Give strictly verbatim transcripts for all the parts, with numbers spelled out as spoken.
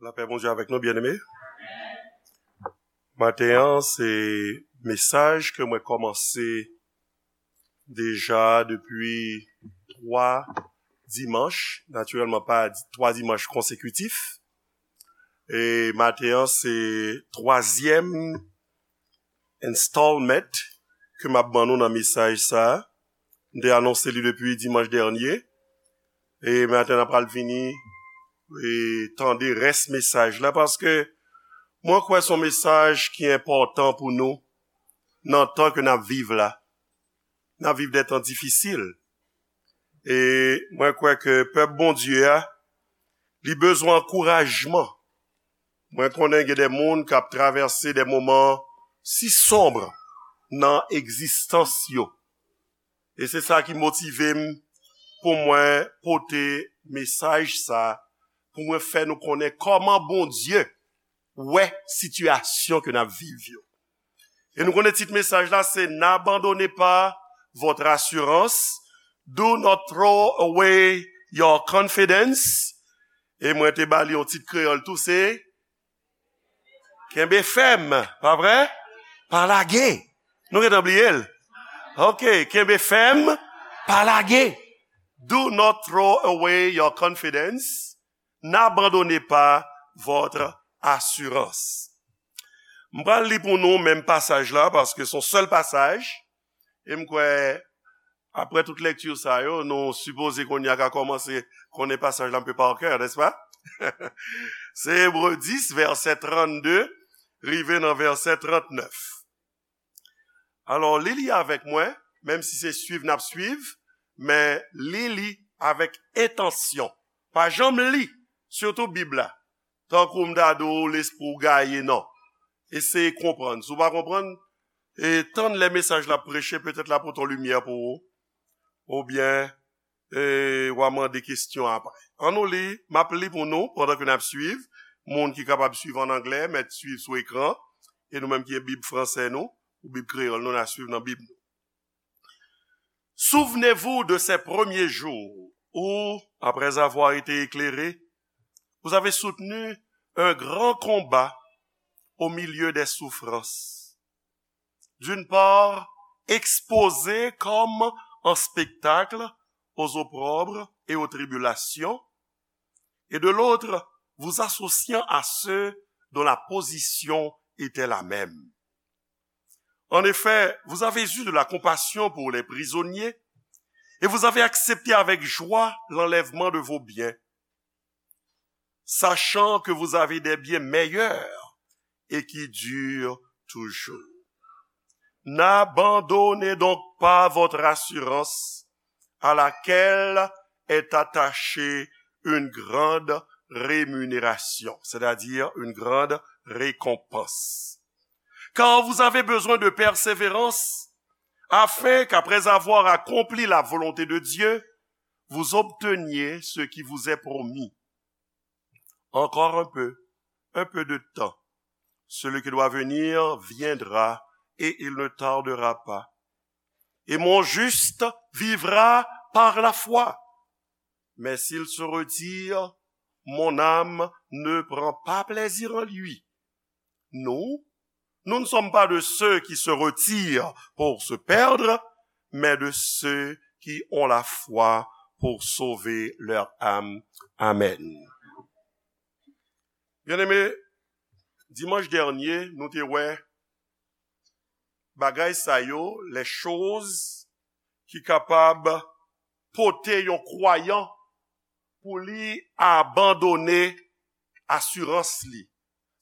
Lapè Bondye avèk nou, byeneme. Maten an, se mesaj ke mwen kòmanse deja depi twa dimanch, natirèlman pa di-, twa dimanch konsekitif. E maten an, se twazyèm installment ke m ap ban nou nan mesaj sa a. M te anonse li depi dimanch dènye. E maten an, n ap pral vini e tande rès mesaj la, paske mwen kwè se yon mesaj ki enpòtan pou nou nan tan ke n ap viv la. N ap viv de tan difisil. E mwen kwè ke pèp Bondye a, li bezwen ankourajman. Mwen konnen gen de moun k ap travèse de moman si sonb nan egzistans yo. E se sa ki motive m pou mwen pote mesaj sa, pou mwen fè nou konnen kòman Bondye wè sitiyasyon ke n ap viv yo. E nou konnen tit mesaj la se N'abandonnez pas votre assurance, Do not throw away your confidence. E mwen te ba li yon tit kreyòl tou, se Kenbe fèm, pa vre? Pa lage. Nou gentan bliye l. Ok, kenbe fèm, pa lage. Do not throw away your confidence. N'abandonnez pas votre assurance. M pral li pou nou menm pasaj la, paske se yon sèl pasaj. E m kwè, apre tout lekti sa yo, nou sipoze kounye a ka kòmanse konnen pasaj la anpe pa kè, nèspa? Se Ebre dis, vèsè trannde, rive nan vèsè trannèf. Alò, li li avèk mwen, menm si se swiv n ap swiv, men li li avèk entansyon. Pa janm li, sitou Bib la, tankou m ta di w lespri w gaye, non. Eseye konprann. Si w pa konprann, e tann lè mesaj la ap preche, petèt l ap pote yon limyè pou ou. Oubyen, e, w a mande kesyon apre. Ann nou li, m ap li pou nou pandan ke n ap swiv. Moun ki kapab swiv an anglè, mèt swiv sou ekran. E nou menm ki gen Bib fransè nou, ou Bib kreyòl nou, n a swiv nan Bib nou. Souvenez-vous de ces premiers jours où, après avoir été éclairés, vous avez soutenu un grand combat au milieu des souffrances. D'une part, exposés comme en spectacle aux opprobres et aux tribulations, et de l'autre, vous associant à ceux dont la position était la même. En effet, vous avez eu de la compassion pour les prisonniers et vous avez accepté avec joie l'enlèvement de vos biens, sachant que vous avez des biens meilleurs et qui durent toujours. N'abandonnez donc pas votre assurance, à laquelle est attachée une grande rémunération, c'est-à-dire une grande récompense. Car vous avez besoin de persévérance, afin qu'après avoir accompli la volonté de Dieu, vous obteniez ce qui vous est promis. Encore un peu, un peu de temps. Celui qui doit venir viendra et il ne tardera pas. Et mon juste vivra par la foi. Mais s'il se retire, mon âme ne prend pas plaisir en lui. Nous, nous ne sommes pas de ceux qui se retirent pour se perdre, mais de ceux qui ont la foi pour sauver leur âme. Amen. Byeneme, dimanch dènye, nou te wè bagay sa yo, les choses ki kapab pote yon kwayan pou li abandone asirans li,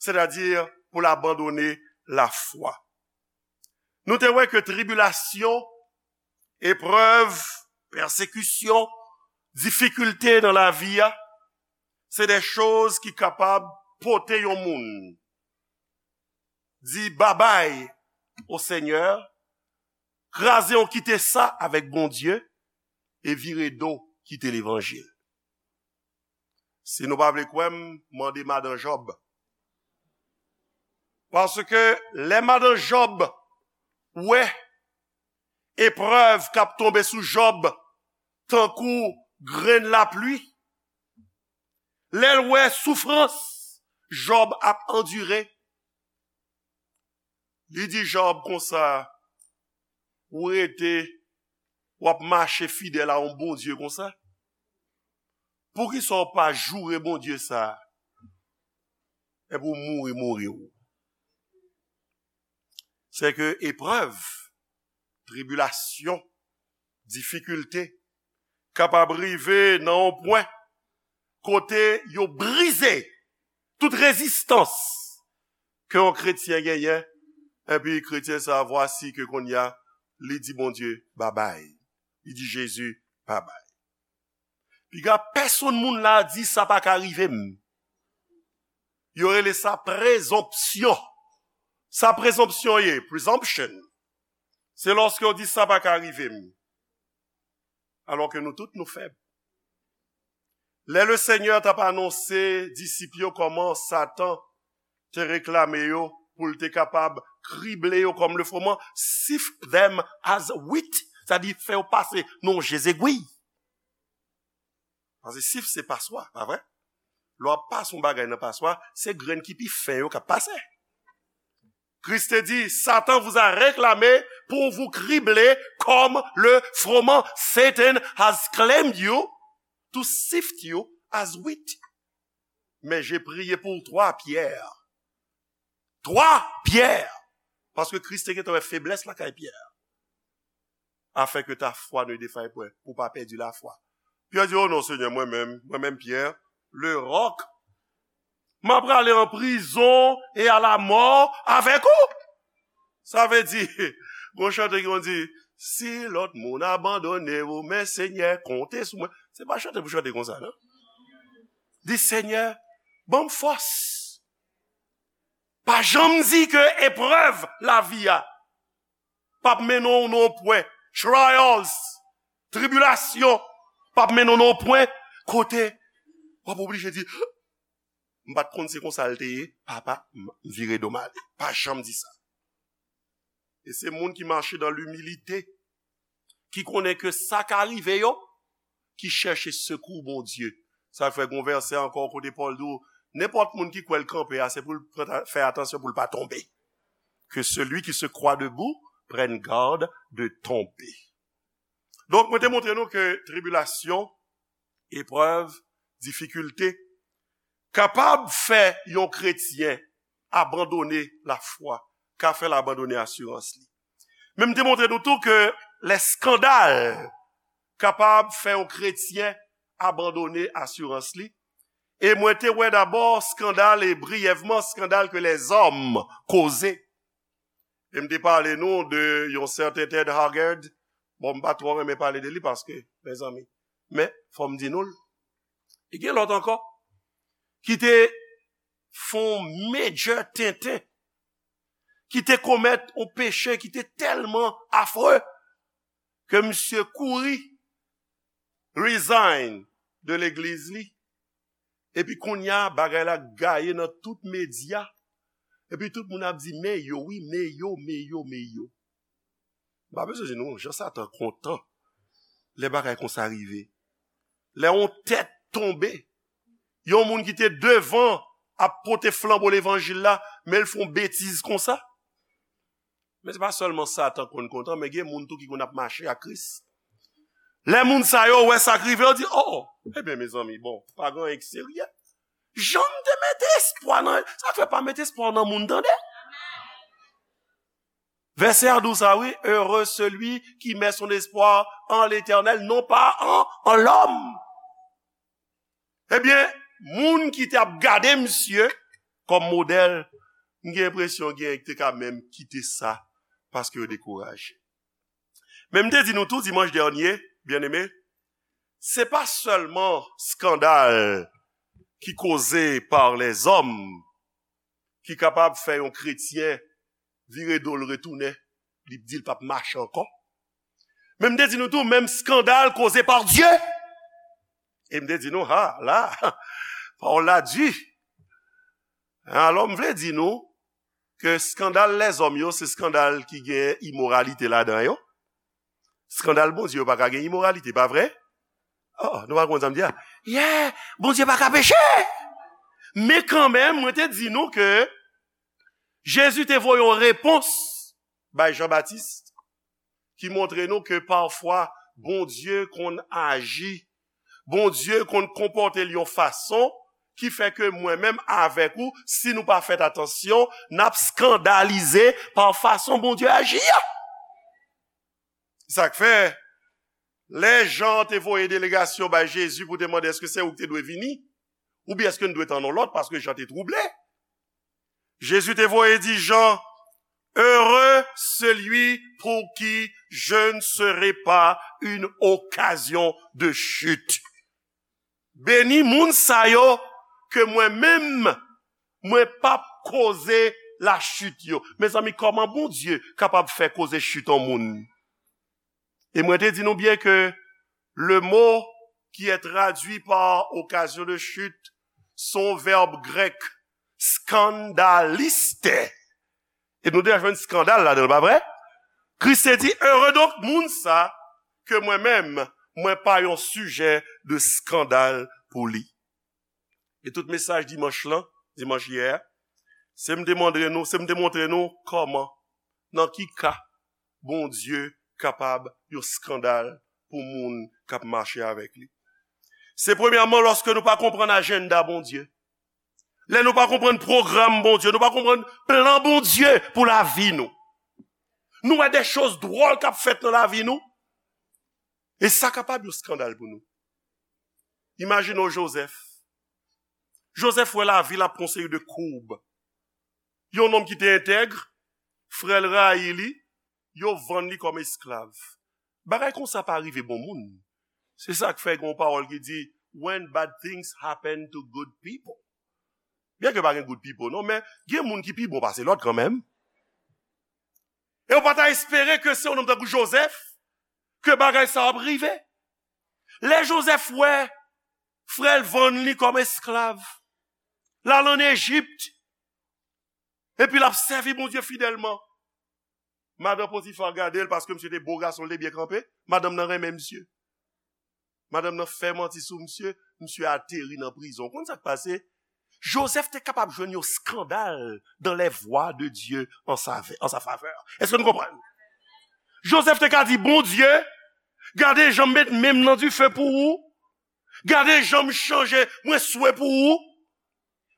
sètadi pou l abandone lafwa. Nou te wè ke tribilasyon, eprèv, pèsekisyon, difikilte nan lavi a, se de choz ki kapab pote yon moun di babay o Senyè, kraze yon kite sa avèk Bondye, e vire do kite levanjil. Si nou pa vle kwè m, mande madan Jòb. Paske lè madan Jòb wè eprèv k ap tonbe sou Jòb tankou grenn lapli, lè l wè soufrans Jòb ap andire. Li di Jòb konsa, ou rete, w ap mache fidèl a yon Bondye konsa? Poukisa w pa joure Bondye sa a? Epi w mouri, mouri w. Se ke eprèv, tribilasyon, difikilte kapab rive nan yon pwen kote yo brize tout rezistans ke yon kretyen genyen, epi kretyen sa a, vwasi ke kounye a, li di Bondye babay. Li di Jezi babay. Piga pèsonn moun la di sa pa ka rive m. Yo rele sa prezonpsyon. Sa prezonpsyon ye, presumption. Se lòske yo di sa pa ka rive m. Alò ke nou tout nou fèb. Lè le Senyè t ap anonse disip yo kòman Satan te reklame yo pou l te kapab krible yo kòm le froman, sift them as wheat, sa di fè yo pase nan je zegwi. Paske sif se paswa, pa vre? Lè w ap pase yon bagay nan paswa, se grenn ki pi fen yo k ap pase. Kris te di, Satan vous a réclamé pour vous cribler comme le froment. Satan has claimed you to sift you as wheat. Mais j'ai prié pour toi, Pierre. Toi, Pierre. Paske Kris te gentan wè feblès lakay Pyè. Afin que ta foi ne défaille point, pou w pa pèdi lafwa. Pyè di, oh non, Senyè, mwen menm, mwen menm, Pyè, le roc, m ap prale an prizon e a la mò avèk ou. Sa vle di, gon chante ki konn di, si lòt moun abandone ou, men Senyè, konte sou mwen. Se pa chante pou chante konsa, non. Di, Senyè, ban m fòs. Pa janm di ke eprèv lavi a p ap mennen w nan yon pwen, trials, tribilasyon, p ap mennen w nan yon pwen kote w ap oblije di, m pa t konn se konsa l te ye, papa, m vire do m ale. Pa janm di sa. E se moun ki mache dan limilite, ki konnen ke sa ka rive yo, ki chèche sekou Bondye. Sa fè gon vèsè ankò kote Pòl di w, nenpòt moun ki kwè l kanpe a, se pou l pran ta-, fè atansyon pou l pa tonbe. Que celui qui se croit debout prenne garde de tomber. Donk, mwen te montre nou ke tribilasyon, eprèv, difikilte, kapab fè yon kretyen abandone lafwa, ka fè l abandone asirans li. Men m te montre nou tou ke lè eskandal kapab fè yon kretyen abandone asirans li. E mwen te wè dabò eskandal, e briyèvman, eskandal ke lèzòm koze. E m te pale nou de yon sèten Ted Haggard. Bon, m pa twò renmen pale de li paske, mezanmi. Men, fò m di nou l. E gen lòt ankò ki te fè yon major tenten, ki te komèt yon peche ki te tèlman afre ke misye kouri resign de legliz li. Epi kounye a, bagay la gaye nan tout medya. Epi tout moun ap di, men yo, wi, men yo, men yo, men yo. M pa bezwen di nou, jan Satan kontan lè bagay konsa rive. Lè yon tèt tonbe, yon moun ki te devan ap pote flanbo levanjil la, men l fè yon betiz konsa. Men se pa sèlman Satan konn kontan, men gen moun tou ki konn ap mache ak Kris. Lè moun sa yo wè sa k rive, yo di, oh, ebyen, mezanmi, bon, pa gen anyen ki serye. Jan m te mete espwa nan, sa fè pa mete espwa nan moun, tande. Vèsè a di w sa, wi, heureux celui qui met son espoir en l'Éternel, non pas en, en l'homme. Ebyen, moun ki t ap gade misye kòm modèl, m gen enpresyon gen ki te ka menm kite sa paske yo dekouraje. Men m te di nou tou dimanch dènye, byeneme, se pa sèlman eskandal ki koze par lèzòm ki kapab fè yon kretyen vire do l retounen, li di l p ap mache ankò. Men m te di nou tou, menm eskandal koze pa Dye. E m te di nou, ha, la, pawòl la di. Alò, m vle di nou ke eskandal lèzòm yo, se eskandal ki gen imoralite ladan yo. Eskandal Bondye yo pa ka gen imoralite, pa vre? Oh, nou pa konn sa m di a? Yeah, Bondye pa ka peche. Men kanmenm, mwen te di nou ke Jezi te voye yon repons bay Jan Batis ki montre nou ke pafwa Bondye konn aji, Bondye konn konpòte l yon fason ki fè ke mwen menm avèk ou, si nou pa fè atansyon, n ap eskandalize pa fason Bondye aji a. Sa k fè, lè Jan te voye delegasyon bay Jezi pou te mande èske se ou ki te dwe vini, oubyen èske n dwe tann yon lòt, paske Jan te twouble. Jezi te voye di Jan, Heureux celui pour qui je ne serai pas une occasion de chute. Beni moun sa yo ke mwen menm, mwen p ap koze lachit yo. Mezanmi, kòman Bondye kapab fè koze chit yon moun? E mwen te di nou byen ke le mot qui est traduit par occasion de chute, se yon vèb grèk, skandaliste. E nou deja jwenn eskandal ladan l, pa vre? Kris te di, Ere donk moun sa, ke mwen menm, mwen pa yon sijè de eskandal pou li. E tout mesaj dimanch lan, dimanch yè a, se m te montre nou, se m te montre nou kòman, nan ki ka Bondye kapab yon eskandal pou moun k ap mache avèk li. Se premyèman lòske nou pa konprann ajanda Bondye. Lè nou pa konprann pwogram Bondye, nou pa konprann plan Bondye pou lavi nou. Nou wè de choz dwòl k ap fèt nan lavi nou. E sa kapab yon eskandal pou nou. Imajine w Jozèf. Jozèf wè lavi l ap pran yon seri de koub. Yon nonm ki te entèg, frè l rayi li, yo vann li kòm esklav. Bagay konsa pa rive bon moun. Se sa k fè gen yon pawòl ki di, When bad things happen to good people. Byen ke pa gen good people, non, men gen moun ki pi bon pase lòt kanmenm. E w pa ta espere ke se yon nonm tankou Jozèf, ke bagay sa ap rive. Lè Jozèf wè frè l vann li kòm esklav, l al ann Ejip, epi l ap sèvi Bondye fidèlman. Madan Potifa gade l paske misye te bo gason, l te byen kanpe. Madanm nan renmen misye. Madanm nan fè manti sou misye, misye ateri nan prizon. Ou konn sa k pase? Jozèf te kapab jwenn yon eskandal dans les voies de Dieu en sa, en sa faveur. Èske nou konprann? Jozèf te ka di, Bondye, gade jan m met men m nan dife pou ou. Gade jan m chanje, mwen swe pou ou.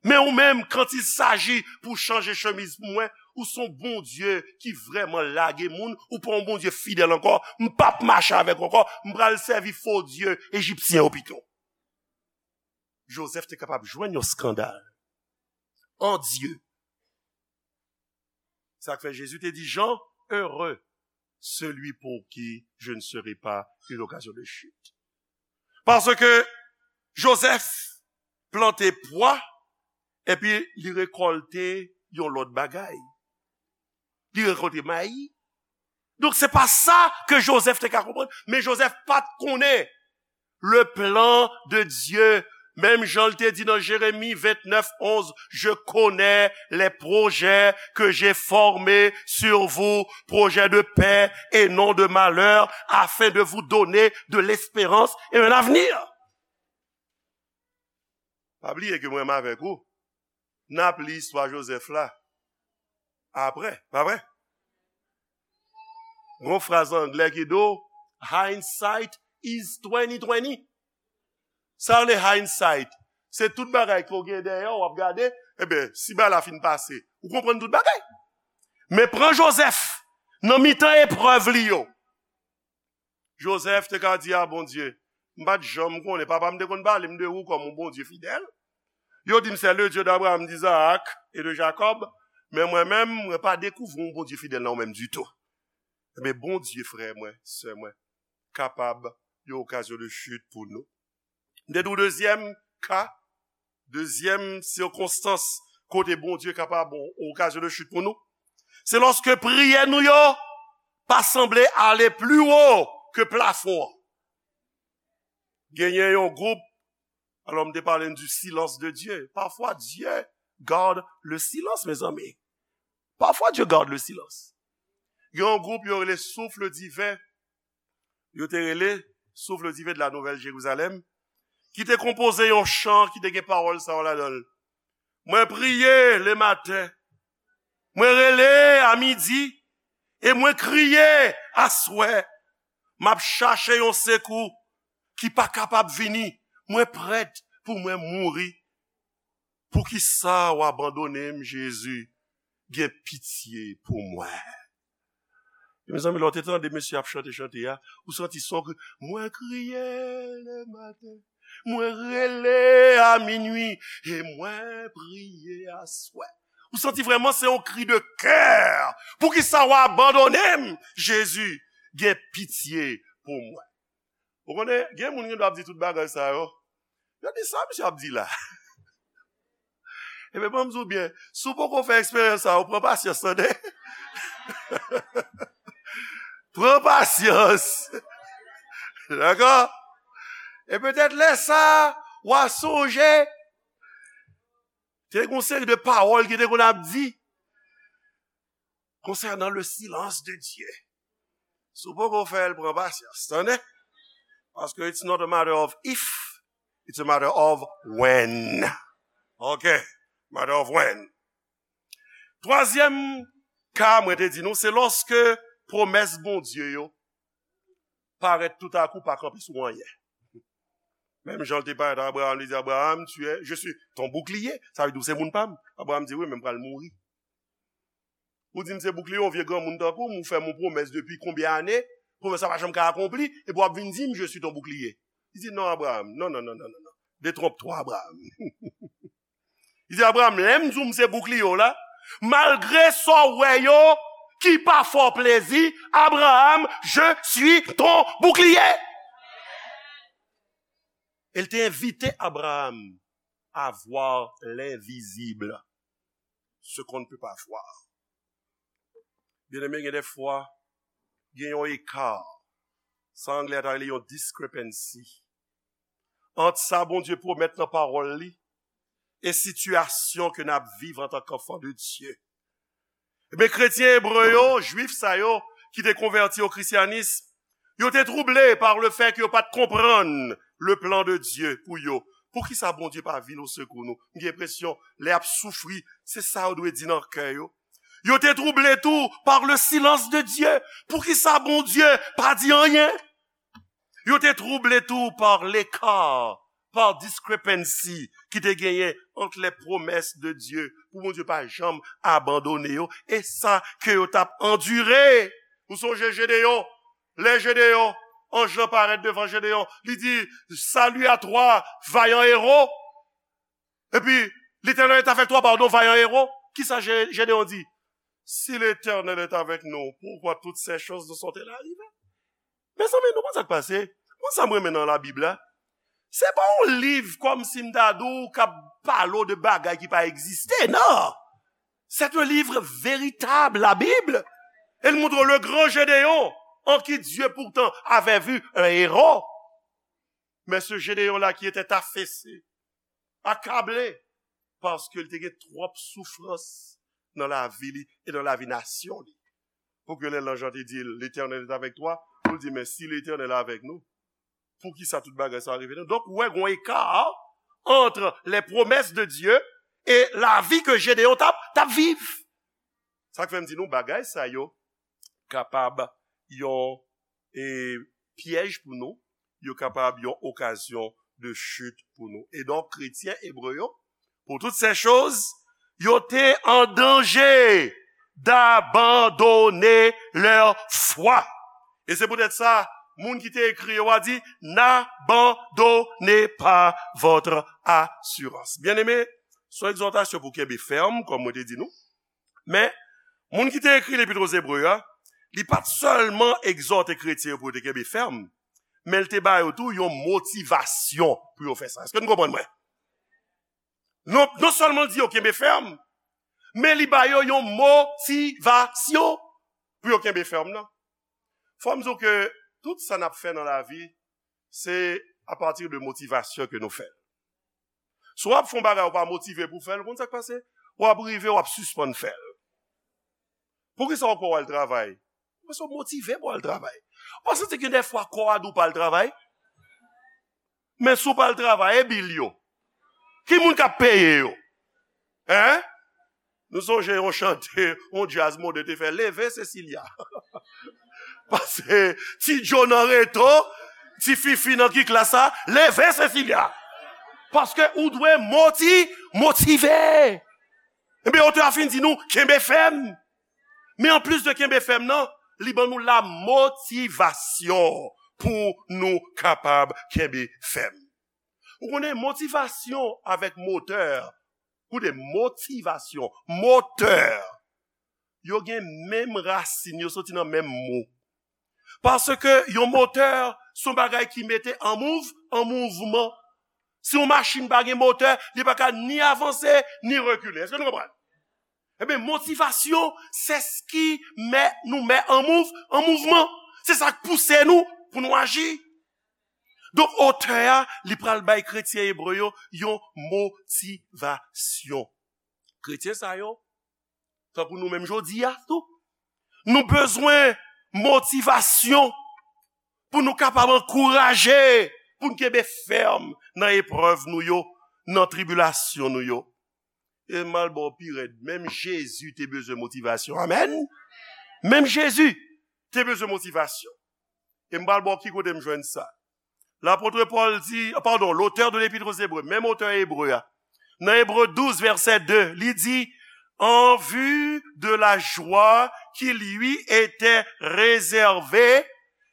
Men ou menm, quand il s'agit pou chanje chemiz pou mwen, ou se yon Bondye ki vrèman lage moun, ou pa yon Bondye fidèl ankò, m p ap mache avèk ou ankò, m pral sèvi fo dye ejipsyen yo pito. Jozèf te kapab jwenn yon eskandal an Dye. Sa k fè Jezi te di Jan, Heureux celui pour qui je ne serai pas une occasion de chute. Paske Jozèf plante pwa, epi li rekòlte yon lòt bagay. Li rekòlte mayi. Donk, se pa sa ke Jozèf te ka konprann. Men Jozèf pa t konnen le plan de Dieu. Menm jan l te di nan Jeremi vennèf onz, Je connais les projets que j'ai formés sur vous, projets de paix et non de malheur, afin de vous donner de l'espérance et un avenir. Pa bliye ke mwen menm avèk ou, n ap li istwa Jozèf la apre, pa vre? Gon fraz anglè ki di w, hindsight is twenty twenty. Sa rele hindsight. Se tout bagay ke w gen dèyè w, w ap gade, ebyen, si bagay la fin pase, ou konprann tout bagay. Men pran Jozèf, nan mitan eprèv li yo. Jozèf te ka di a Bondye, m pa t janm konnen, papa m te konn pale m de ou kòm yon Bondye fidèl. Yo di m, c'est le Dieu d'Abraham, d'Isaac et de Jacob, men mwen menm, mwen pa dekouvri yon Bondye fidèl nan ou menm ditou. Ebyen, Bondye, frè mwen, sè mwen, kapab yon okazyon de chit pou nou. M te di w dezyèm ka, dezyèm sikonstans kote Bondye kapab yon okazyon de chit pou nou, se lòske priyè nou yo pa sanble ale pli wo ke plafon an. Genyen yon gwoup, alò m te pale n du silence de Dieu. Parfois Dieu garde le silence, mezanmi. Parfois Dieu garde le silence. Gen yon gwoup yo rele Souffle Divin. Yo te rele Souffle Divin de la Nouvelle Jérusalem, ki te konpoze yon chan ki te gen pawòl sa yo ladan l. Mwen priye le maten. Mwen rele a midi. E mwen kriye aswè. M ap chache yon sekou ki pa kapab vini. Mwen prèt pou mwen mouri. Poukisa w abandone m, Jezi? Gen pitye pou mwen. Mezanmi, lè w te tande mesye ap chante chante a, ou santi son kri, mwen kriye le maten, mwen rele a minwi, e mwen priye aswè. Ou santi vrèman se yon kri de kè. Poukisa w abandone m, Jezi? Gen pitye pou mwen. Ou konnen, gen moun ki dwe ap di tout bagay sa yo. Yo di sa misye ap di la. Ebyen, ban m di w byen, si w poko fè eksperyans sa, ou pran pasyans, tande. Pran pasyans. Dakò? E petèt lè sa, w a sonje, te gen yon seri de pawòl ki te konn ap di konsènan le silence de Dieu. Si w poko fè l, pran pasyans, tande? Paske it's not a matter of if, it's a matter of when. Ok, matter of when. Twazyèm ka mwen te di nou, se lòske pwomès Bondye yo parèt toutakou pa kanpe sou anyen. Menm jan l te parèt a Abraham, li di, Abraham, tu es, je suis ton bouclier. Sa vle di w se moun pa m. Abraham di, wi, men m pral mouri. Ou di m se boukliye, yon vye granmoun tankou m, ou fè m yon pwomès depi konbyen ane, pwomès la pa janm ka akonpli, epi w ap vin di m, je suis ton bouclier. Li di, non, Abraham, non, non, non, non, non, non. Détrompe-toi, Abraham. Li di, Abraham, lè m di w m se boukliye w la, malgre sa w wè yo ki pa fè w plezi, Abraham, je suis ton bouclier. E l te envite Abraham à voir l'invisible, ce qu'on ne peut pas voir. Byeneme, gen de fwa, gen yon eka, sa anglè ta rele yon discrepancy, ant sa Bondye pwomèt nan pawòl li e sitiyasyon ke n ap viv antanke anfan de Dye. Ebyen, kretyen ebre yo, jwif sa yo, ki te konvèti o krisyanis, yo te trouble par le fait ke yo pa t konprann le plan de Dieu pou yo. Poukisa Bondye pa vin o sekou nou? M gen enpresyon, lè y ap soufri, se sa yo dwe di nan kè yo. Yo te trouble tou par le silence de Dieu. Poukisa Bondye pa di anyen? Yo te trouble tou par l'écart, par discrepancy ki te genyen ant les promesses de Dieu, pou Bondye pa janm abandone yo, e sa ke yo t ap andire. Ou sonje Jedeyon? Lè Jedeyon, anj lan parèt devan Jedeyon, li di, salut à toi, vaillant héros. Epi, Letènèl est avec toi, pardon, vaillant héros. Kisa Je-, Jedeyon di? Si Letènèl est avec nous, pourquoi toutes ces choses nous sont-elles arrivées? Mezanmi, nou konn sa k pase? Konn sa m renmen nan Labib la? Se pa yon liv kòmsi m ta di w k ap pale w de bagay ki pa egziste, non! C'est un livre véritable, la Bible. Elle montre le grand Gédéon, en qui Dieu pourtant avait vu un héros. Mais ce Gédéon-là qui était affaissé, accablé, paske l te gen twòp soufrans nan lavi li e nan lavi nasyon li. Pou ke lè lanj lan te di l, Letènèl est avec toi, pou l di, men si Letènèl avèk nou, poukisa tout bagay sa rive nou? Donk, ou wè, gon eka ant les promesses de Dieu e lavi ke Jedeyon t ap, t ap viv. Sa k fè m di nou, bagay sa yo kapab yon, e, pyèj pou nou, yo kapab yon okazyon de chit pou nou. E donk, kretyen ebre yo, pour toutes ces choses, yo te an danje d'abandonner leur foi. E se poutèt sa, moun ki te ekri yo a di, n'abandonnez pas votre assurance. Byeneme, se yon egzòtasyon pou kenbe fèm, kòm mwen te di nou. Men, moun ki te ekri Lepit o Zebre a, li pa t sèlman egzòte kretyen yo pou yo te kenbe fèm, men l te ba yo tou yon motivasyon pou yo fè sa. Èske nou konprann mwen? Non, non sèlman l di yo kenbe fèm, men li ba yo yon motivasyon pou yo kenbe fèm nan. Fò m di w ke tout sa n ap fè nan lavi, se apati de motivasyon ke nou fè l. Si w ap fè yon bagay, ou pa motive pou w fè l, ou konn sa k pase? W ap rive, w ap sispann fè l. Poukisa w kwè w al travay? Paske w motive pou w al travay. Ou pa santi gen de fwa kò a di w pa al travay? Men si w pa al travay, e bil yo? Ki moun k ap peye yo? Hein? Nou sonje yon chante, yon djaz mode te fè, Leve Cecilia. Paske ti Joe nan reto, ti Fifi nan ki klas sa, Leve Cecilia. Paske ou dwe moti, motive. Ebyen, otè a fin di nou, kenbe fèm. Men anplis de kenbe fèm nan, li ban nou la motivasyon pou nou kapab kenbe fèm. Ou konnen motivasyon avèk motè, koute motivasyon, motè, yo gen menm rasin, yo soti nan menm mo. Paske yon motè se yon bagay ki mete an mouv, an mouvman. Si yon machin pa gen motè, li pa ka ni avanse, ni rekile. Èske nou konprann? Ebyen, motivasyon, c'est ce qui met, nous met en mouv-, en mouvement. Se sa k pouse nou pou nou aji. Donk, otè a, li pral bay kretyen ebre yo yon motivasyon. Kretyen sa yo, tankou nou menm jodi a tou, nou bezwen motivasyon pou nou kapab ankouraje, pou n kenbe fèm nan eprèv nou yo, nan tribilasyon nou yo. E m al ba w pi rèd, menm Jezi te bezwen motivasyon. Amèn. Menm Jezi te bezwen motivasyon. E m pral ba w ki kote m jwenn sa. Lapot Pòl di, padon, l'auteur de l'Épître aux Hébreux, menm otè Ebre a, nan Ebre douz, vèsè de, li di, en vue de la joie qui lui était réservée,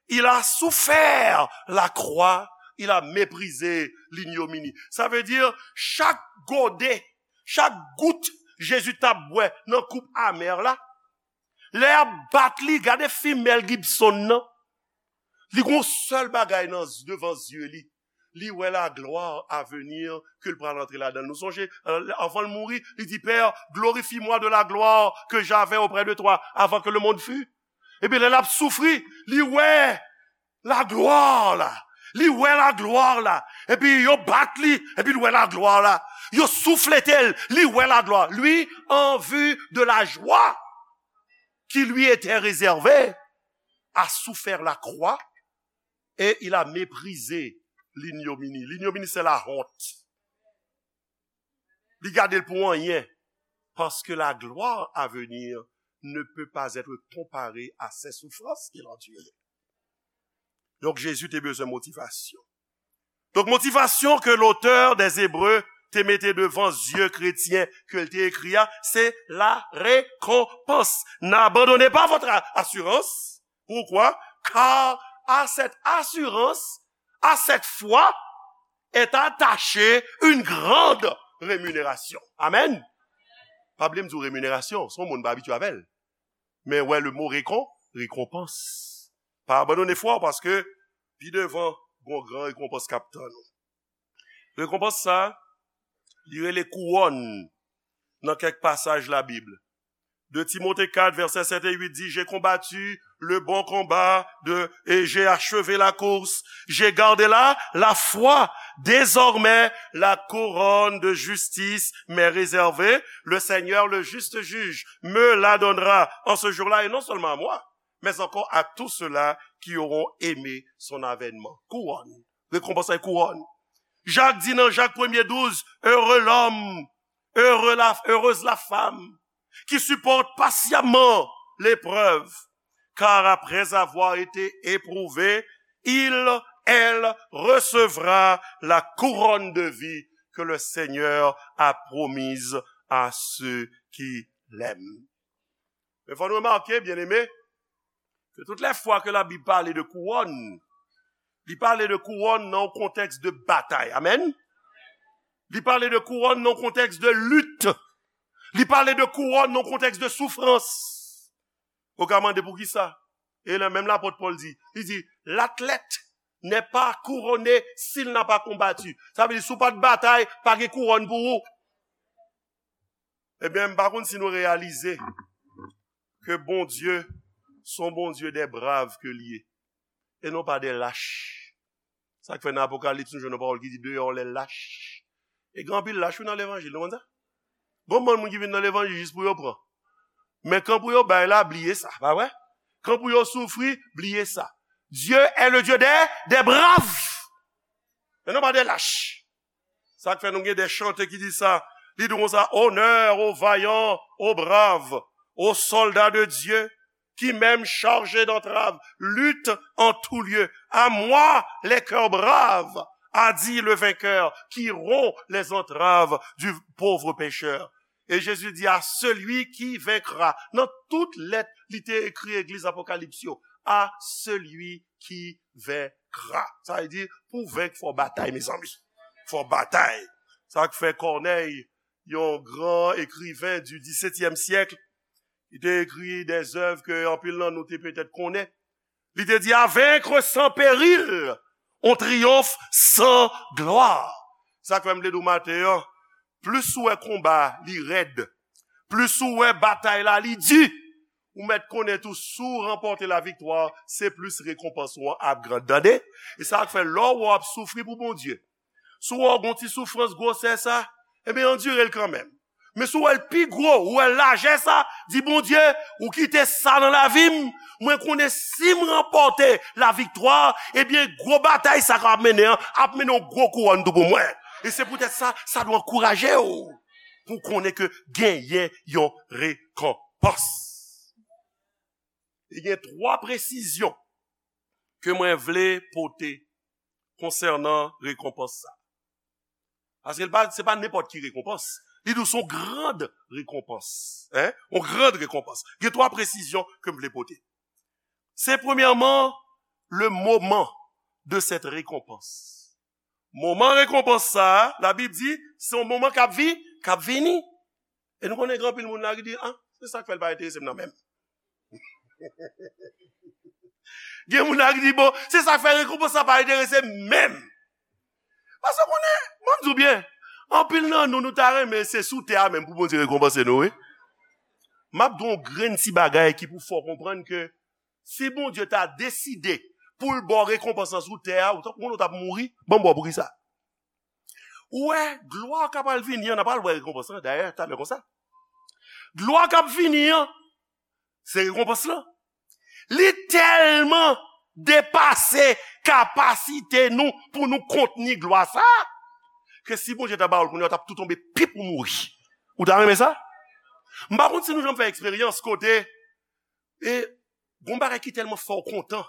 il a souffert la croix, il a méprisé l'ignominie. Sa vle di, chak gode, chak gout Jezi t ap bwè nan koup amè la, lè y ap bat li, gade fim Mel Gibson nan. Li gon sèl bagay nan, devan zye li. Li wè la gloire à venir ke l pral antre ladan l. Nou sonje, euh, anvan l mouri, li di, Père, glorifie-moi de la gloire que j'avais auprès de toi avant que le monde fût. Epi lè l ap soufri, li wè la gloire la. Li wè la gloire la. Epi yo bat li, epi l wè la gloire la. Yo souflete l, li wè la gloire. Lui, en vue de la joie qui lui était réservée, a souffert la croix et il a méprisé l'ignominie. L'ignominie, c'est la honte. Li gade l pou anyen. Parce que la gloire à venir ne peut pas être comparée à ces souffrances qu'il endurait. Donk, Jezi te bezwen motivasyon. Donk, motivasyon ke l'auteur des Hébreux te mete devan zye kretyen ke l te ekri a, se la récompense. N'abandonnez pas votre a-, assurance. Pourquoi? Car à cette assurance, à cette foi, est attachée une grande rémunération. Amen. Pa bliye m di w remuneration, se yon mo n pa abitye avè l. Men wè le mo récon-, récompense. Pa abandone fwa w paske pi devan, gon gran rekonpans k ap tann ou. Rekonpans sa, li rele kouwòn nan kèk pasaj Labib. De Timote kat, vèsè sèt e uit di, J'ai combattu le bon combat de, et j'ai achevé la course. J'ai gardé la, la foi. Désormais, la couronne de justice m'est réservée. Le Seigneur, le juste juge, me la donnera en ce jour-là, et non seulement à moi, mais encore à tous ceux-là qui auront aimé son avènement. Kouwòn. Rekonpans la kouwòn. Jak di nan Jak premye douz, Heureux l'homme, heureux la, heureuse la femme qui supporte patiemment l'épreuve, car après avoir été éprouvé, il, elle recevra la couronne de vie que le Seigneur a promise à ceux qui l'aiment. Men fò nou remake, byeneme, ke tout lè fwa ke Labib pale de kouwòn, li pale de kouwòn nan yon kontèks de batay. Amèn. Li pale de kouwòn nan yon kontèks de lit. Li pale de kouwòn nan yon kontèks de soufrans. Ou ka mande poukisa? E la, menm lapot Pòl di, li di, L'athlète n'est pas couronné s'il n'a pas combattu. Sa vle di, si w pa t batay, pa gen kouwòn pou ou. Ebyen, m pa konn si nou reyalize ke Bondye se yon Bondye des braves ke l ye, e non pa des lâches. Sa k fè nan Apokalips, nou jwenn yon pawòl ki di, Dehors les lâches. E gen anpil lach, wi, nan levanjil, nou konn sa? Gon bann moun ki vin nan levanjil jis pou yo pran. Men kan pou yo bay la, bliye sa, pa vre? Kan pou yo soufri, bliye sa. Dieu est le Dieu des, des braves. E non pa des lâches. Sa k fè nou gen de chante ki di sa, Li di konsa, honneur aux vaillants, aux braves, aux soldats de Dieu, qui même chargés d'entraves luttent en tout lieu. À moi, les cœurs braves, a dit le vainqueur, qui rompt les entraves du pauvre pécheur. Et Jésus dit, à celui qui vaincra. Nan tout lèt li te ekri egliz Apokalips yo, à celui qui vaincra. Sa vle di, pou venk, fò batay, mezanmi. Fò batay. Sa k fè Kònèy, yon gran ekriven du disetyèm syèk, li te ekri de zèv ke anpil nan nou te petèt konnen. Li te di, à vaincre sans péril, on triomphe sans gloire. Sa k fè m vle di w maten an, plis ou wè konba li rèd, plis ou wè batay la li di, ou mèt konnen tou, si w ranpòte laviktwa, se plis rekonpans ou an ap gran. Tande? E sa k fè lè w ap soufri pou Bondye, si w wè w gon ti soufrans gwosè sa, ebyen, andire l kanmenm. Men si w wè l pi gwo, ou wè l lajè sa, di, Bondye, ou kite sa nan lavi m, mwen konnen si m ranpòte laviktwa, ebyen, gwo batay sa k ap mennen an, ap mennen yon gwo kouwòn tou pou mwen. E se poutèt sa, sa dwe ankouraje w pou w konnen ke genyen yon rekonpans. E gen twa presizyon ke mwen vle pote konsènan rekonpans sa. Paske l pa, se pa nenpòt ki rekonpans. Li di w se yon grand rekonpans. Hein? Yon grand rekonpans. Gen twa presizyon ke m vle pote. Se premyèman, le moment de cette récompense. Moman rekonpans sa a, Labib di, se yon moman k ap vi, k ap vini. E nou konnen gen anpil moun la ki di, ah, se sa k fè l pa enterese m nan menm. Gen moun la ki di, bon, se sa k fè rekonpans sa pa enterese m menm. Paske konnen, mwen m di w byen, anpil nan nou, nou ta renmen se sou tè a menm pou Bondye rekonpanse nou, wi. M ap di w yon grenn ti bagay ki pou fè w konprann ke si Bondye ta deside pou l ba w rekonpans lan sou tè a, ou t ap, ou t ap mouri, ban m ba w poukisa. Ou wè, glwa k ap al vini an, n ap al wè rekonpans lan, dayè, talè konsa. Glwa k ap vini an, se rekonpans lan. Li tèlman depase kapasite nou pou nou kontni glwa sa a, ke si Bondye ta ba w l kounye a, w t ap tou tonbe pip ou mouri. Ou ta renmen sa? M pa konn si nou janm fè eksperyans kote, e, gon bagay ki tèlman fè w kontan,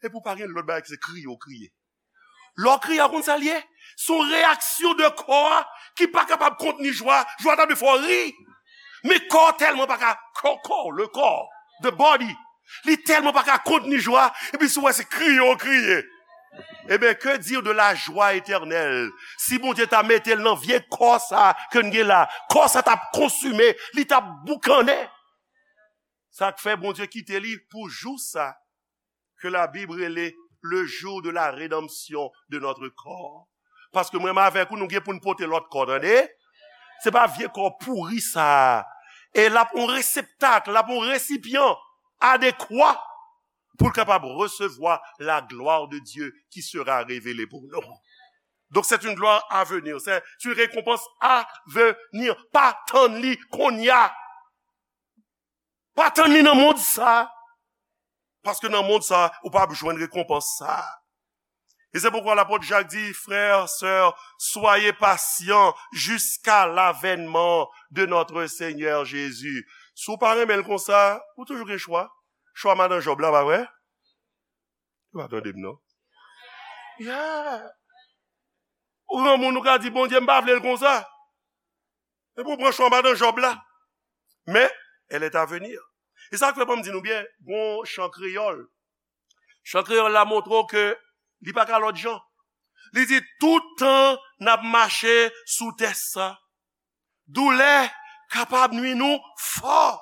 epi w pa gen lòt bagay ki se kriye w kriye. Lè w kriye a, w konn sa l ye? Se yon reyaksyon de kò a ki pa kapab kontni jwa. Jwa ta dwe fè w ri. Men kò tèlman pa ka, kò, kò, le kò, the body, li tèlman pa ka kontni jwa, epi si w wè se kriye w kriye. Ebyen, que dire de la joie éternelle? Si Bondye ta mete l nan vye kò sa ke n gen la, kò sa t ap konsime, li t ap boukannen. Sa k fè Bondye kite li pou jou sa ke Labib rele le jour de la rédemption de notre corps. Paske mwen menm avèk ou, nou gen pou n pote lòt kò, tande? Se pa vye kò pouri sa a. E l ap yon reseptak, l ap yon resipyan adekwa pou l kapab resevwa la gloire de Dieu qui sera révélée pour nous. Donc c'est une gloire à venir, c'est une récompense à venir. Pa tann li kounye a. Pa tann li nan mond sa. Paske nan mond sa, ou p ap jwenn rekonpans sa. E se poukwa lapot Jak di, frères, sœurs, soyez patients jusqu'à l'avènement de notre Seigneur Jésus. Si w pa renmen l konsa, ou toujou gen chwa. Chwa madan Jòb la, pa vre? Ou pa tande m, non? Yeah. Ou granmoun, ou ka di, Bondye, m pa vle l konsa. Epi w pran chwa madan Jòb la. Men, elle est à venir. E sa k fè, ban m di nou byen, gon chan kreyòl. Chan kreyòl la montre w ke li pa ka lòt jan. Li di, tout tan n ap mache sou tè sa, doulè kapab nwi nou fò.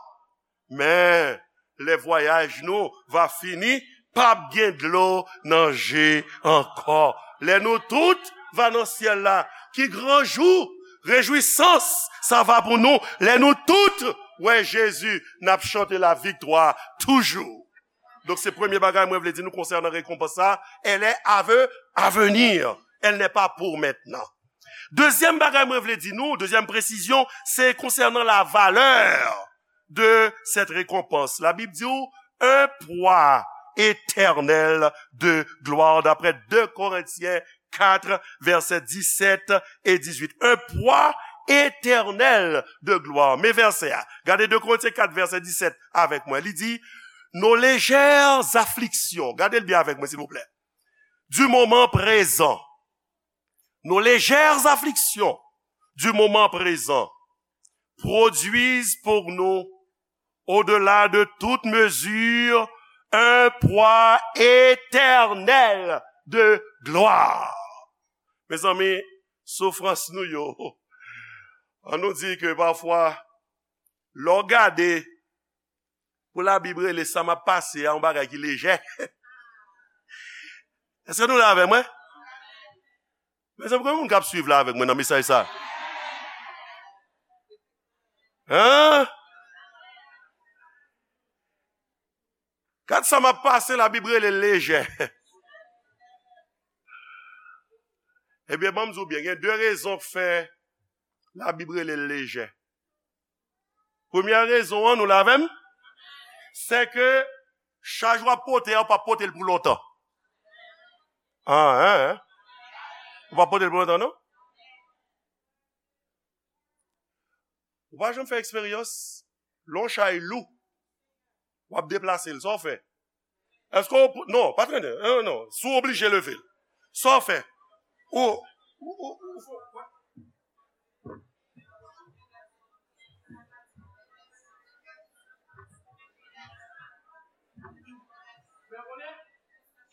Men, lè vwayaj nou va fini, p ap gen dlo nan je ankò. Lè nou tout va nan syèl la, ki gran jou, rejwisans sa va pou nou. Lè nou tout wè Jezi, n ap chante laviktwa toujou. Donk, se premye bagay mwen vle di nou konsènan rekonpans sa, elle est à ve-, à venir. Elle n'est pas pour maintenant. Dezyèm bagay mwen vle di nou, dezyèm presizyon, se konsènan la valeur de cette récompense. Labib di w, un poids éternel de gloire, d'après deux Corinthiens quatre, versets dix-sept et dix-huit. Un poids éternel de gloire. Men vèsè a. Gade de Korentyen kat, vèsè disèt avèk mwen. Li di, nos légères afflictions. Gade l byen avèk mwen, silvouplè. Du moment présent. Nos légères afflictions du moment présent produisent pour nous, au-delà de toute mesure, un poids éternel de gloire. Mezanmi, soufrans nou yo, an nou di ke pafwa, lè w gade, pou Labib rele sa m ap pase a yon bagay ki lejè. Èske nou la avè mwen? Mezanmi, konbyen moun k ap swiv la avèk mwen nan mesaj sa? Hein? Gad sa m ap pase, Labib rele l lejè. Ebyen, ban m di w byen, gen de rezon k fè Labib rele l lejè. Premyè rezon an, nou la avè m? Se ke chaj w ap pote a, w p ap pote l pou lontan. Ah, hein, hein? Ou p ap pote l pou lontan, non? Ou pa janm fè eksperyans, lè yon chay lou, w ap deplase l, sa w fè? Èske w, non, pa trennen, non, non, si w oblije leve l, sa w fè? Ou, ou, ou, ou,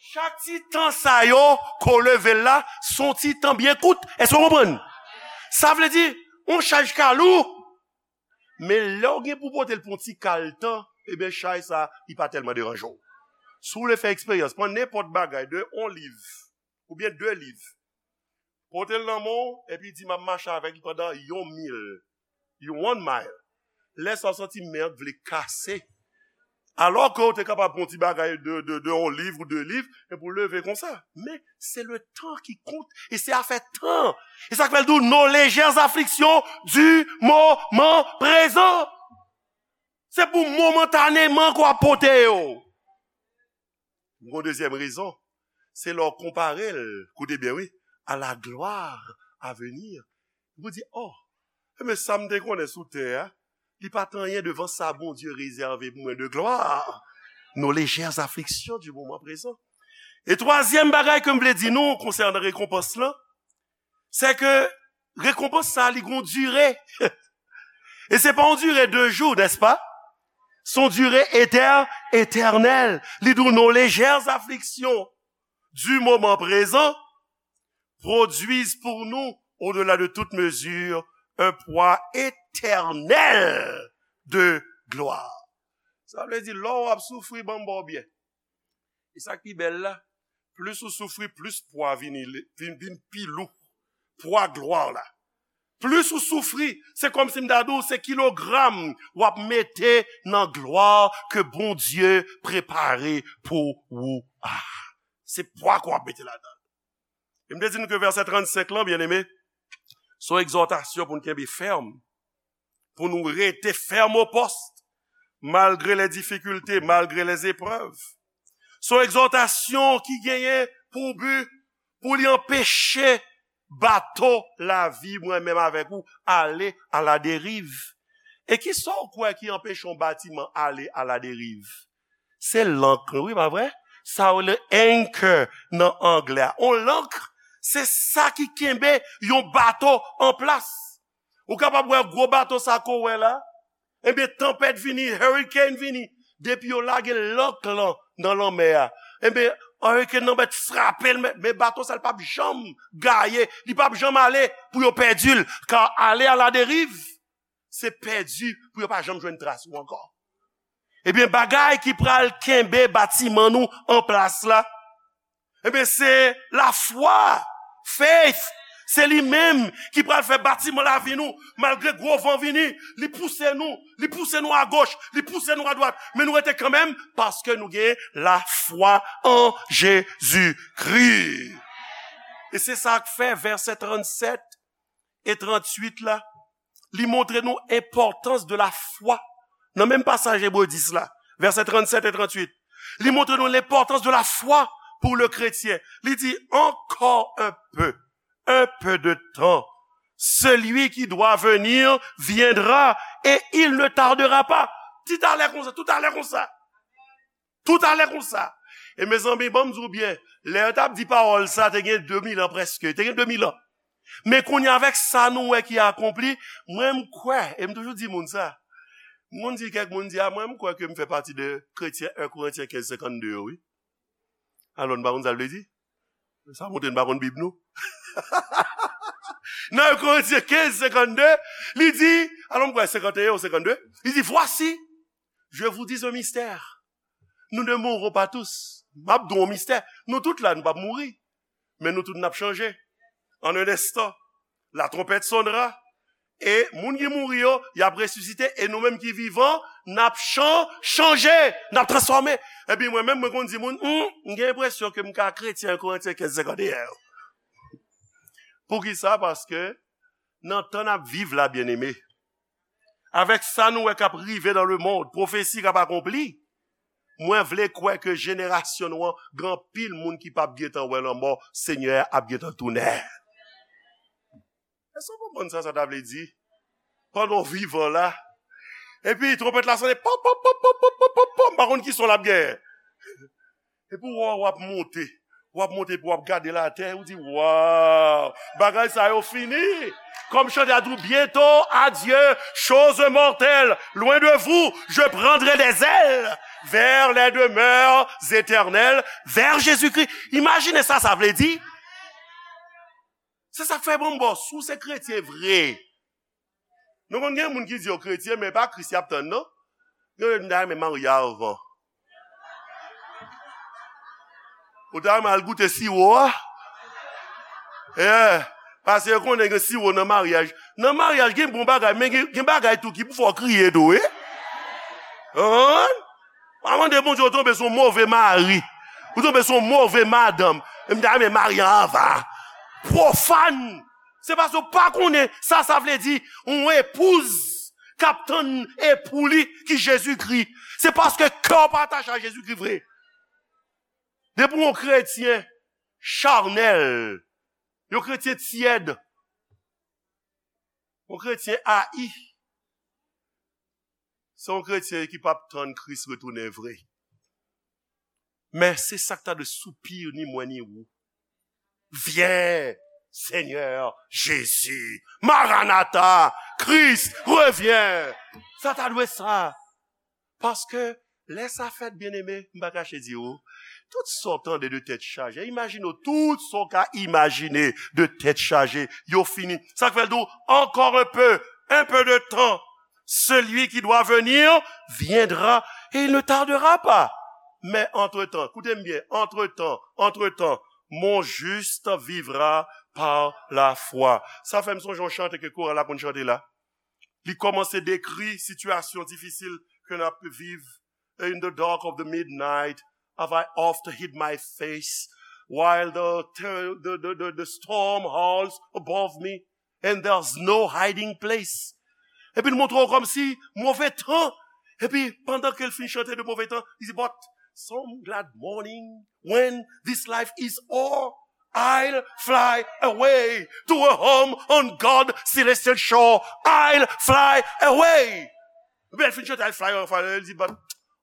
Chak ti tan sa yo, ke w leve l la, se yon ti tan byen kout. Èske w konprann? Sa vle di, yon chaj ka lou, men lè w gen pou pote l pou yon ti kal tan, ebyen, chay sa, li pa tèlman deranje w. Si w vle fè eksperyans, pran nenpòt bagay, de yon liv, oubyen de liv, pote l nan men w, epi di, "M ap mache avèk li pandan yon mil, yon one mile." Lè sa w santi men an vle kase. Alò ke w te kapab pran yon ti bagay de, de, de yon liv ou de liv, epi w leve konsa. Men, se le tan ki kont, e se afè tan. E sa k fè l di w, nos légères afflictions du moment présent. Se pou momantaneman ke w ap pote yo. Yon dezyèm rezon, se lè w konpare l, koute byen wi, à la gloire à venir. Ou di, oh, men sa m te konnen sou tè a, li pa t anyen devan sa Bondye rezève pou mwen de glwa. Nos légères afflictions du moment présent. E twazyèm bagay ke m vle di nou konsènan rekonpans lan, se ke rekonpans sa li gon dire. E se pa yon dire de jou, n'est-ce pas? Se yon dire éter-, éternel. Li di w, nos légères afflictions du moment présent produisent pour nous, au-delà de toute mesure, un poids éternel de gloire. Sa vle di, lè w ap soufri, ban m ba w byen. E sa k pi bèl la, plis ou soufri, plis pwa vini, vin, vin pi lou. Pwa glwa la. Plis ou soufri, se kòmsi m ta di w, se kilogram w ap mete nan glwa ke Bondye prepare pou ou a. Se pwa ke w ap mete ladan l. E m te di nou ke vèsè trannsenk lan, byeneme, se yon egzòtasyon pou n kenbe fèm, pou nou rete fèm o pòs, malgre les difficultés, malgre les épreuves. Se yon egzòtasyon ki genyen pou bi, pou li anpeche bato lavi mwen menm avèk ou ale à la dérive. E kisa w kwè ki anpeche yon batiman ale à la dérive? Se lank, wi, pa vre? Sa yo rele anchor nan anglè a. On lank, se sa ki kenbe yon bato an plas. Ou kapab wè gwo bato sa ke w wè la, ebyen, tanpèt vini, hurricane vini, depi yo lage lank lan nan lanmè a, ebyen, hurricane nan mèt frape l, men, men bato sa, li p ap janm gaye, li p ap janm ale pou yo pèdi l, car aller à la dérive, se pèdi pou yo pa janm jwenn tras ou ankò. Ebyen, bagay ki pral kenbe batiman nou an plas la, ebyen, se lafwa, faith. Se li menm ki pral fè batiman lavi nou, malgre gwo van vini, li pouse nou, li pouse nou agoch, li pouse nou adwat, men nou rete kanmenm, paske nou gen lafwa an Jezikri. E se sa k fè vèsè trannsèt e trannuit la, li montre nou enpòtans de la foi. Nan menm pasaj Ebre dis la, vèsè trannsèt e trannuit, li montre nou lenpòtans de la foi pour le chrétien. Li di, encore un peu, un peu de temps, Celui qui doit venir viendra et il ne tardera pas. Tout talè konsa, tout talè konsa. Tout talè konsa. E mezanmi, ban m di w byen, lè yo t ap di pawòl sa, te gen de mil an prèske, te gen de mil an. Men kounye a, avèk sa nou wè ki akonpli, mwen m kwè, e m toujou di moun sa, m konn di kèk moun di, a, mwen m kwè ke m fè pati de kretyen en Korentyen kenz senkannde yo, wi. Alò, n pa konn sa l vle di? Sa montre n pa konn Bib nou. Nan en Korentyen kenz senkannde, li di, alò, m kwè senkannde ou senkannde, li di, voici, je vous dis un mystère. Nous ne mourrons pas tous. M ap di w yon mistè. Nou tout la, nou p ap mouri. Men nou tout n ap chanje. En un instant, la trompette sonnera. E moun ki mouri yo, y ap resisite. E nou menm ki vivan, n ap chan-, chanje. N ap transfòme. Epi mwen menm, mwen konn di moun, hmm, m gen enpresyon ke m ka kretyen en Korentyen kenz senkannde. Poukisa? Paske nan tan n ap viv la, byeneme, avèk sa nou wè k ap rive dans le monde, pwofesi k ap akonpli, mwen vle kwè ke jenerasyon nou an, gen anpil moun ki p ap gentan wè lanmò, Senyè a ap gentan tounen. Èske w konprann sa sa ta vle di? Pandan w vivan la, epi twonpèt la sonnen, pòp, pòp, pòp, pòp, pòp, pòp, pòp, pòp, m pa konn ki son l ap gen. Epi w wè w ap monte, w ap monte, epi w ap gade latè, ou di, waw, bagay sa yo fini. Kòm chante a di w, bientôt, adieu, choses mortelles, loin de vous, je prendrai des ailes vers les demeures éternelles, vers Jésus-Christ. Imajine sa sa vle di. Se sa k fè bon bò, si w se kretyen vre. Nou konn gen moun ki di yo kretyen, men pa Kris y ap tann, non. Yo, yo, m ta renmen marye anvan. Ou ta renmen al goute siwo a? Yeah. Paske yo konnen gen siwo nan maryaj. Nan maryaj, gen bon bagay, men gen, gen bagay tou ki pou fè w kriye tou, wi. Konprann? Pa mande Bondye ou tonbe sou yon move mari. Ou tonbe sou yon move madanm. E m ta renmen marye anvan. Pwofàn. Se paske w pa konnen sa sa vle di yon epouz k ap tann epou li ki Jezikri. Se paske kè w pa atache a Jezikri vre. Depi w yon kretyen chanèl, yon kretyen tyèd, yon kretyen ayi, se yon kretyen ki p ap tann Kris retounen vre. Men se sa k ta dwe soupir ni mwen ni ou. Viens, Seigneur Jésus. Maranatha, Christ, reviens. Sa ta dwe sa. Paske lè sa fèt, byeneme, m pa kache di ou, tout sa w tande de tèt chaje, imajine w, tout sa w ka imajine de tèt chaje, yo fini. Sa k fè l di w, encore un peu, un peu de temps. Celui qui doit venir viendra et il ne tardera pas. Men antretan, koute m byen, antretan, antretan, mon juste vivra par la foi. Sa fè m sonje yon chante ke koral la konn chante la. Li kòmanse dekri sitiyasyon difisil ke n ap viv. In the dark of the midnight, have I oft hid my face, while the, the, the, the, the storm howls above me, and there's no hiding place. Epi l montre w kòmsi move tan. Epi pandan ke l fin chante de move tan, li di, but some glad morning, when this life is o'er, I'll fly away to a home on God's celestial shore. I'll fly away. Epi l fin chante, I'll fly away, li di, but,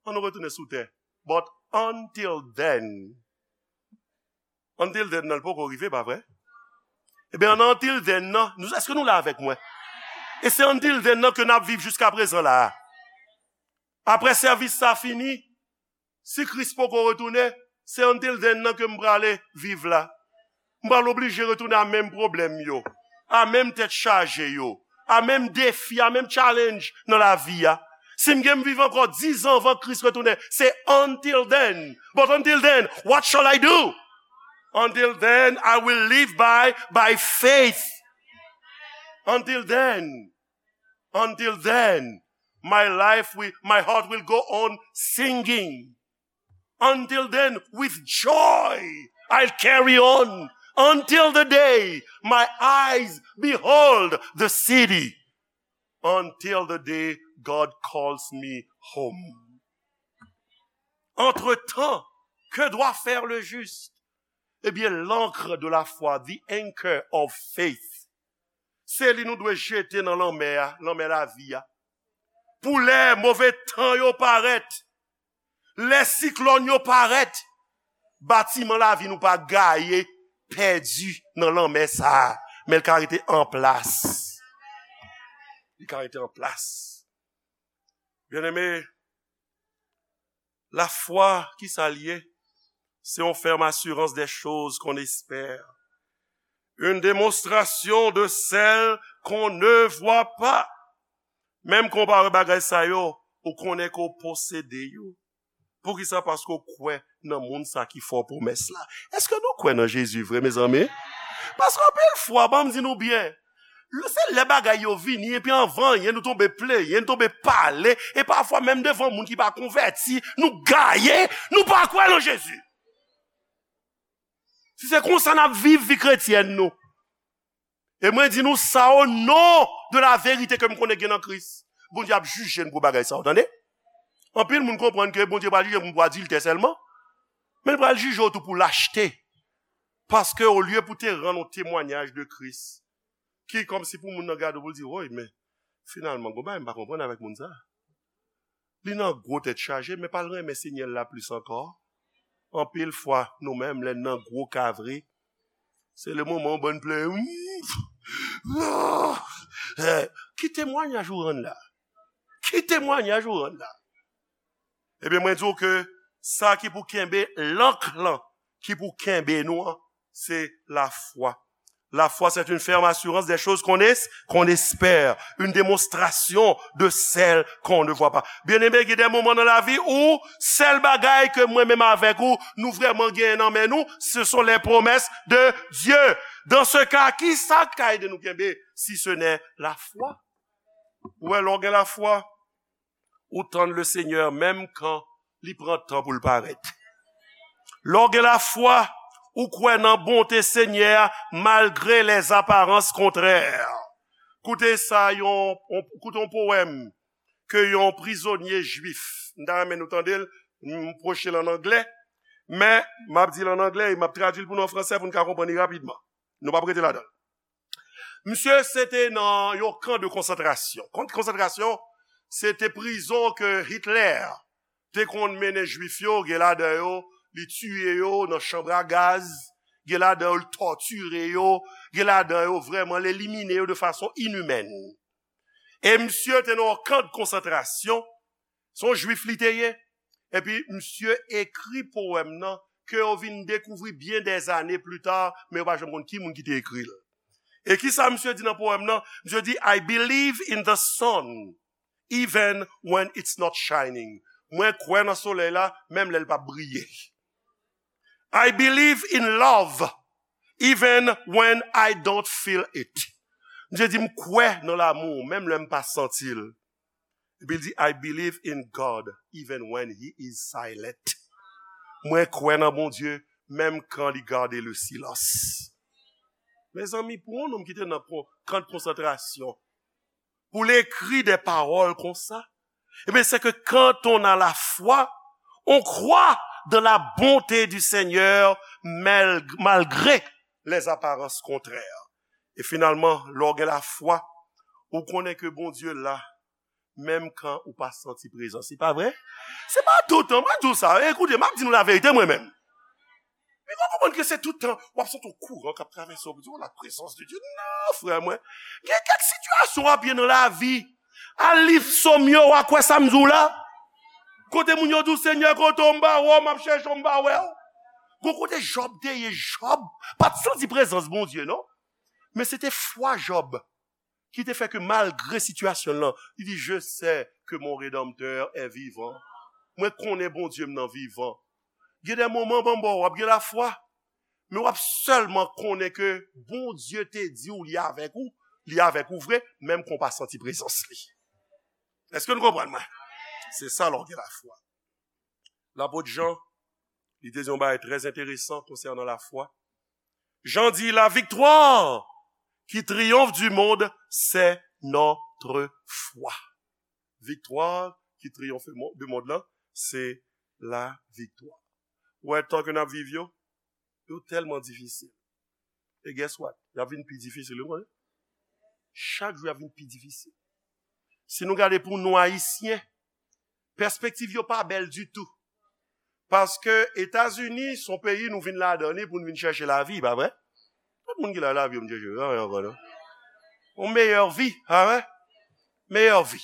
ann nou retounen sou tè. But until then, until then nan, l poko rive, pa vre? Ebyen, nan until then nan, nou, èske nou la avèk mwen? E se until then nan ke n ap viv jiska prezan la a. Apre sèvis sa fini, si Kris poko retounen, se until then nan ke m prale viv la. M pral oblije retounen a menm pwoblèm yo, a menm tèt chaje yo, a menm defi, a menm challenge nan lavi a. Si m gen m viv ankò dizan anvan Kris retounen, se until then. But until then, what shall I do? Until then, I will live by, by faith. Until then, until then, my life will, my heart will go on singing. Until then, with joy, I'll carry on. Until the day my eyes behold the city. Until the day God calls me home. Entre-temps, que doit faire le juste? Eh bien, l'ancre de la foi, the anchor of faith, Se li nou dwe jete nan lanmè a, lanmè lavi a. Pou lè move tan yo parèt, lè siklòn yo parèt, batiman lavi nou pa gaye, pèdi nan lanmè sa a, men l ka rete an plas. Li ka rete an plas. Byeneme, lafwa, ki sa l ye? C'est une ferme assurance des choses qu'on espère. Une démonstration de celles qu'on ne voit pas. Menm kan w pa wè bagay sa yo, ou konnen ke w posede yo. Poukisa? Paske w kwè nan moun sa ki fè w pwomès la. Èske nou kwè nan Jezi vre, mezanmi? Paske anpil fwa, ban m di nou byen, se lè bagay yo vini, epi anvan anyen, nou tonbe plenyen, nou tonbe pale, e pafwa menm devan moun ki pa konvèti, nou gaye, nou pa kwè nan Jezi. Si se konsa n ap viv vi kretyèn nou, e mwen di nou sa o non de la verite ke m konnen gen nan Kris. Bondye ap jije n pou bagay sa yo, tande. Anpil moun konprann ke Bondye pral jije moun pou adiltè sèlman, men l pral jije w tou pou lachte. Paske olye pou te rann yon temwayaj de Kris, ki kòmsi pou moun nan gade w pou l di, woy, men finalman, gon bagay m pa konprann avèk moun sa. Li nan gwo tèt chaje, men pa l renmen Senyè l la plis ankò. Anpil fwa, nou menm, lè n nan gwo ka vre, se le moman w bann plenyen. Ki temwayaj ou rann la? Ki temwayaj ou rann la? Ebyen, mwen di w ke sa ki pou kenbe, lank lan ki pou kenbe nou an, se lafwa. La foi, c'est une ferme assurance des choses qu'on es-, qu'on espère, une démonstration de celles qu'on ne voit pas. Byeneme, gen de moman nan lavi ou, sèl bagay ke mwen menm avèk ou, nou vrèman genyen nan men nou, ce sont les promesses de Dieu. Dans ce cas, ki sa k ka ede nou kenbe, si ce n'est la foi? Ou wè, lè w gen lafwa, ou tann le Seigneur menm kan li pran tan pou l parèt. Lè w gen lafwa, ou kwè nan bonte Senyè a malgre les apparences contraires. Koute sa, yon, yon, koute yon powèm ke yon prizonye jwif, m ta renmen nou tande l, m pwoche l an anglè, men m ap di l an anglè e m ap tradui l pou nou an fransè pou n ka konprann li rapidman. Nou p ap rete ladan l. Misye se te nan yon kan de konsantrasyon. Kan de konsantrasyon, se te prizon ke Hitler te konn mennen Jwif yo, gen ladan yo, li tiye yo nan chanm a gaz, gen ladan yo, li tòtire yo, gen ladan yo, vrèman, li elimine yo de fason inimèn. E misye te nan yon kan de konsantrasyon, se yon Jwif li te ye. Epi misye ekri powèm nan ke yo vin dekouvri byen dèzane pli ta, men yo pa janm konn ki moun ki te ekri l. E ki sa misye di nan powèm nan? Misye di, I believe in the sun, even when it's not shining. Mwen kwè nan solèy la, menm lè l p ap briye. I believe in love, even when I don't feel it. Misye di, m kwè nan lanmou, menm lè m pa santi l. Epi l di, I believe in God, even when he is silent. Mwen kwè nan Bondye, menm kan li gade le silans. Mezanmi, pou yon nonm ki te nan kon-, kan de konsantrasyon, pou l ekri de pawòl konsa, ebyen, c'est que quand on a la foi, on croit dans la bonté du Seigneur, mal-, malgré les apparences contraires. E finalman, lè w gen lafwa, ou konnen ke Bondye la, menm kan ou pa santi prezans li, pa vre? Se pa toutan, mwen di w sa, e koute, m ap di nou laverite mwen menm. Men nou konprann ke se toutan w ap santi yon kouran k ap travèse w, pou di, oh, la présence de Dieu. Non, frè mwen. Gen kèk sitiyasyon w ap ye nan lavi. Al li Sòm yo, w a kwè sa m di w la. Kote moun yo di w, Senyè, kote w, m pa wè w, m ap chèche w, m pa wè w. Gon kote Jòb te ye, Jòb pa t santi prezans Bondye, non. Men se te fwa Jòb ki te fè ke malgre sitiyasyon l lan, li di, je sais que mon Rédempteur est vivant. Mwen konnen Bondye m nan vivan. Gen de moman, banm ba w, w ap gen lafwa, men w ap sèlman konnen ke Bondye te di w li avèk ou, li avèk ou vre, menm kan w pa santi prezans li. Èske nou konprann mwen? Se sa lè w gen lafwa. Lapot Jan, li te di yon bagay trè enteresan konsènan lafwa. Jan di, la victoire qui triomphe du monde, c'est notre foi. Viktwa ki triyonfe mo-, de mond lan, se laviktwa. Ou wè, tan ke n ap viv yo, yo tèlman difisil. E guess what? Y ap vin pi difisil, ou konnen? chak jou y ap vin pi difisil. Si nou gade pou nou Ayisyen, pèspektiv yo pa bèl ditou. Paske Etazini se yon peyi nou vin ladan li pou nou vin chèche lavi, pa vre? Tout moun ki la lavi yo vin chèche, pa vre ankò non. Yon meyè vi, pa vre? Meyè vi.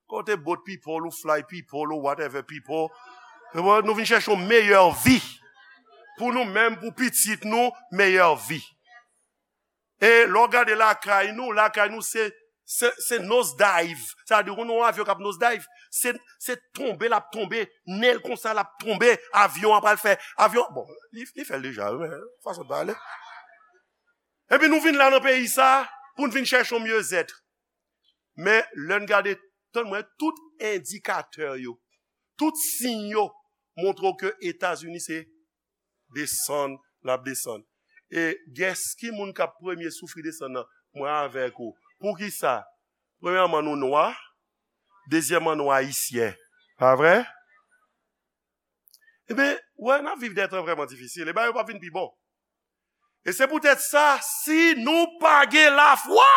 Kote boat people ou fly people ou whatever people. Nou vin chèche yon meyè vi. Pou nou menm, pou pitit nou, meyè vi. E lè w gade lakay nou, lakay nou se, se, se nose dive. Sa vle di, ou nan yon avyon k ap nose dive, se, se tonbe l ap tonbe, nen l konsa l ap tonbe, avyon an pral fè, avyon, bon, li, li fè l deja, wi, men fason l pale. Epi nou vin la nan peyi sa, pou n vin chèche yon myezèt. Men lè n gade, tann mwen, tout endikatè yo, tout siy yo montre w ke Etazini se desann, l ap desann. E guess ki moun k ap premye soufri desann nan? Mwen avèk ou. Poukisa? Premyèman, nou nwa. Dezyèmman, nou ayisyen. Pa vre? Ebyen, wè, n ap viv de tan vrèman difisil. E bagay yo p ap vin pi bon. E se poutèt sa, si nou pa gen lafwa,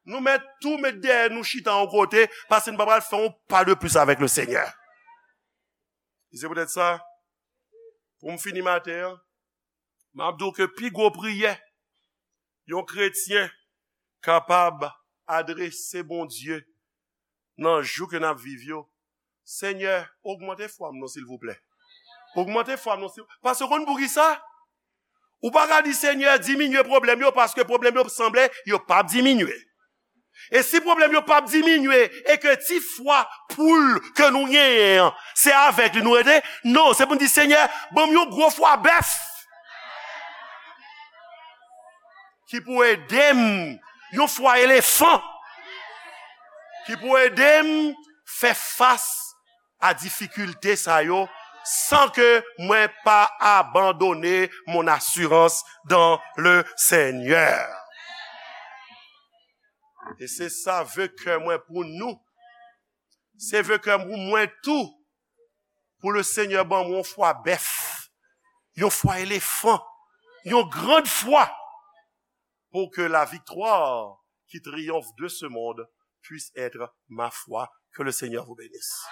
nou mèt tou met dèyè nou chita yon kote, paske nou pa pral fè yon pa de plis avèk le Senyè. E se poutèt sa, pou m fini maten an, m ap di w ke pi gwo priyè yon kretyen kapab adrese Bondye nan jou ke n ap viv yo, Senyè, ogmante fwa m non, silvouplè. Ogmante fwa m non, silvouplè. Paske w konn poukisa? Ou pa ka di, Senyè, diminye pwoblèm yo, paske pwoblèm yo sanble yo p ap diminye. E si pwoblèm yo p ap diminye, e ke ti fwa poul ke nou genyen an, se avèk li nou rete, non, se pou n di, Senyè, ban m yon gwo fwa bèf ki pou ede m, yon fwa elefan ki pou ede m fè fas a difikilte sa yo, san ke mwen pa abandone mon asirans dan le Senyè. E se sa ve kè mwen pou nou. Se ve kè mwen pou mwen tou, pou le Senyè ban mwen yon fwa bèf, yon fwa elefan, yon grand fwa, pour que la victoire qui triomphe de ce monde puisse être ma foi. Que le Seigneur vous bénisse.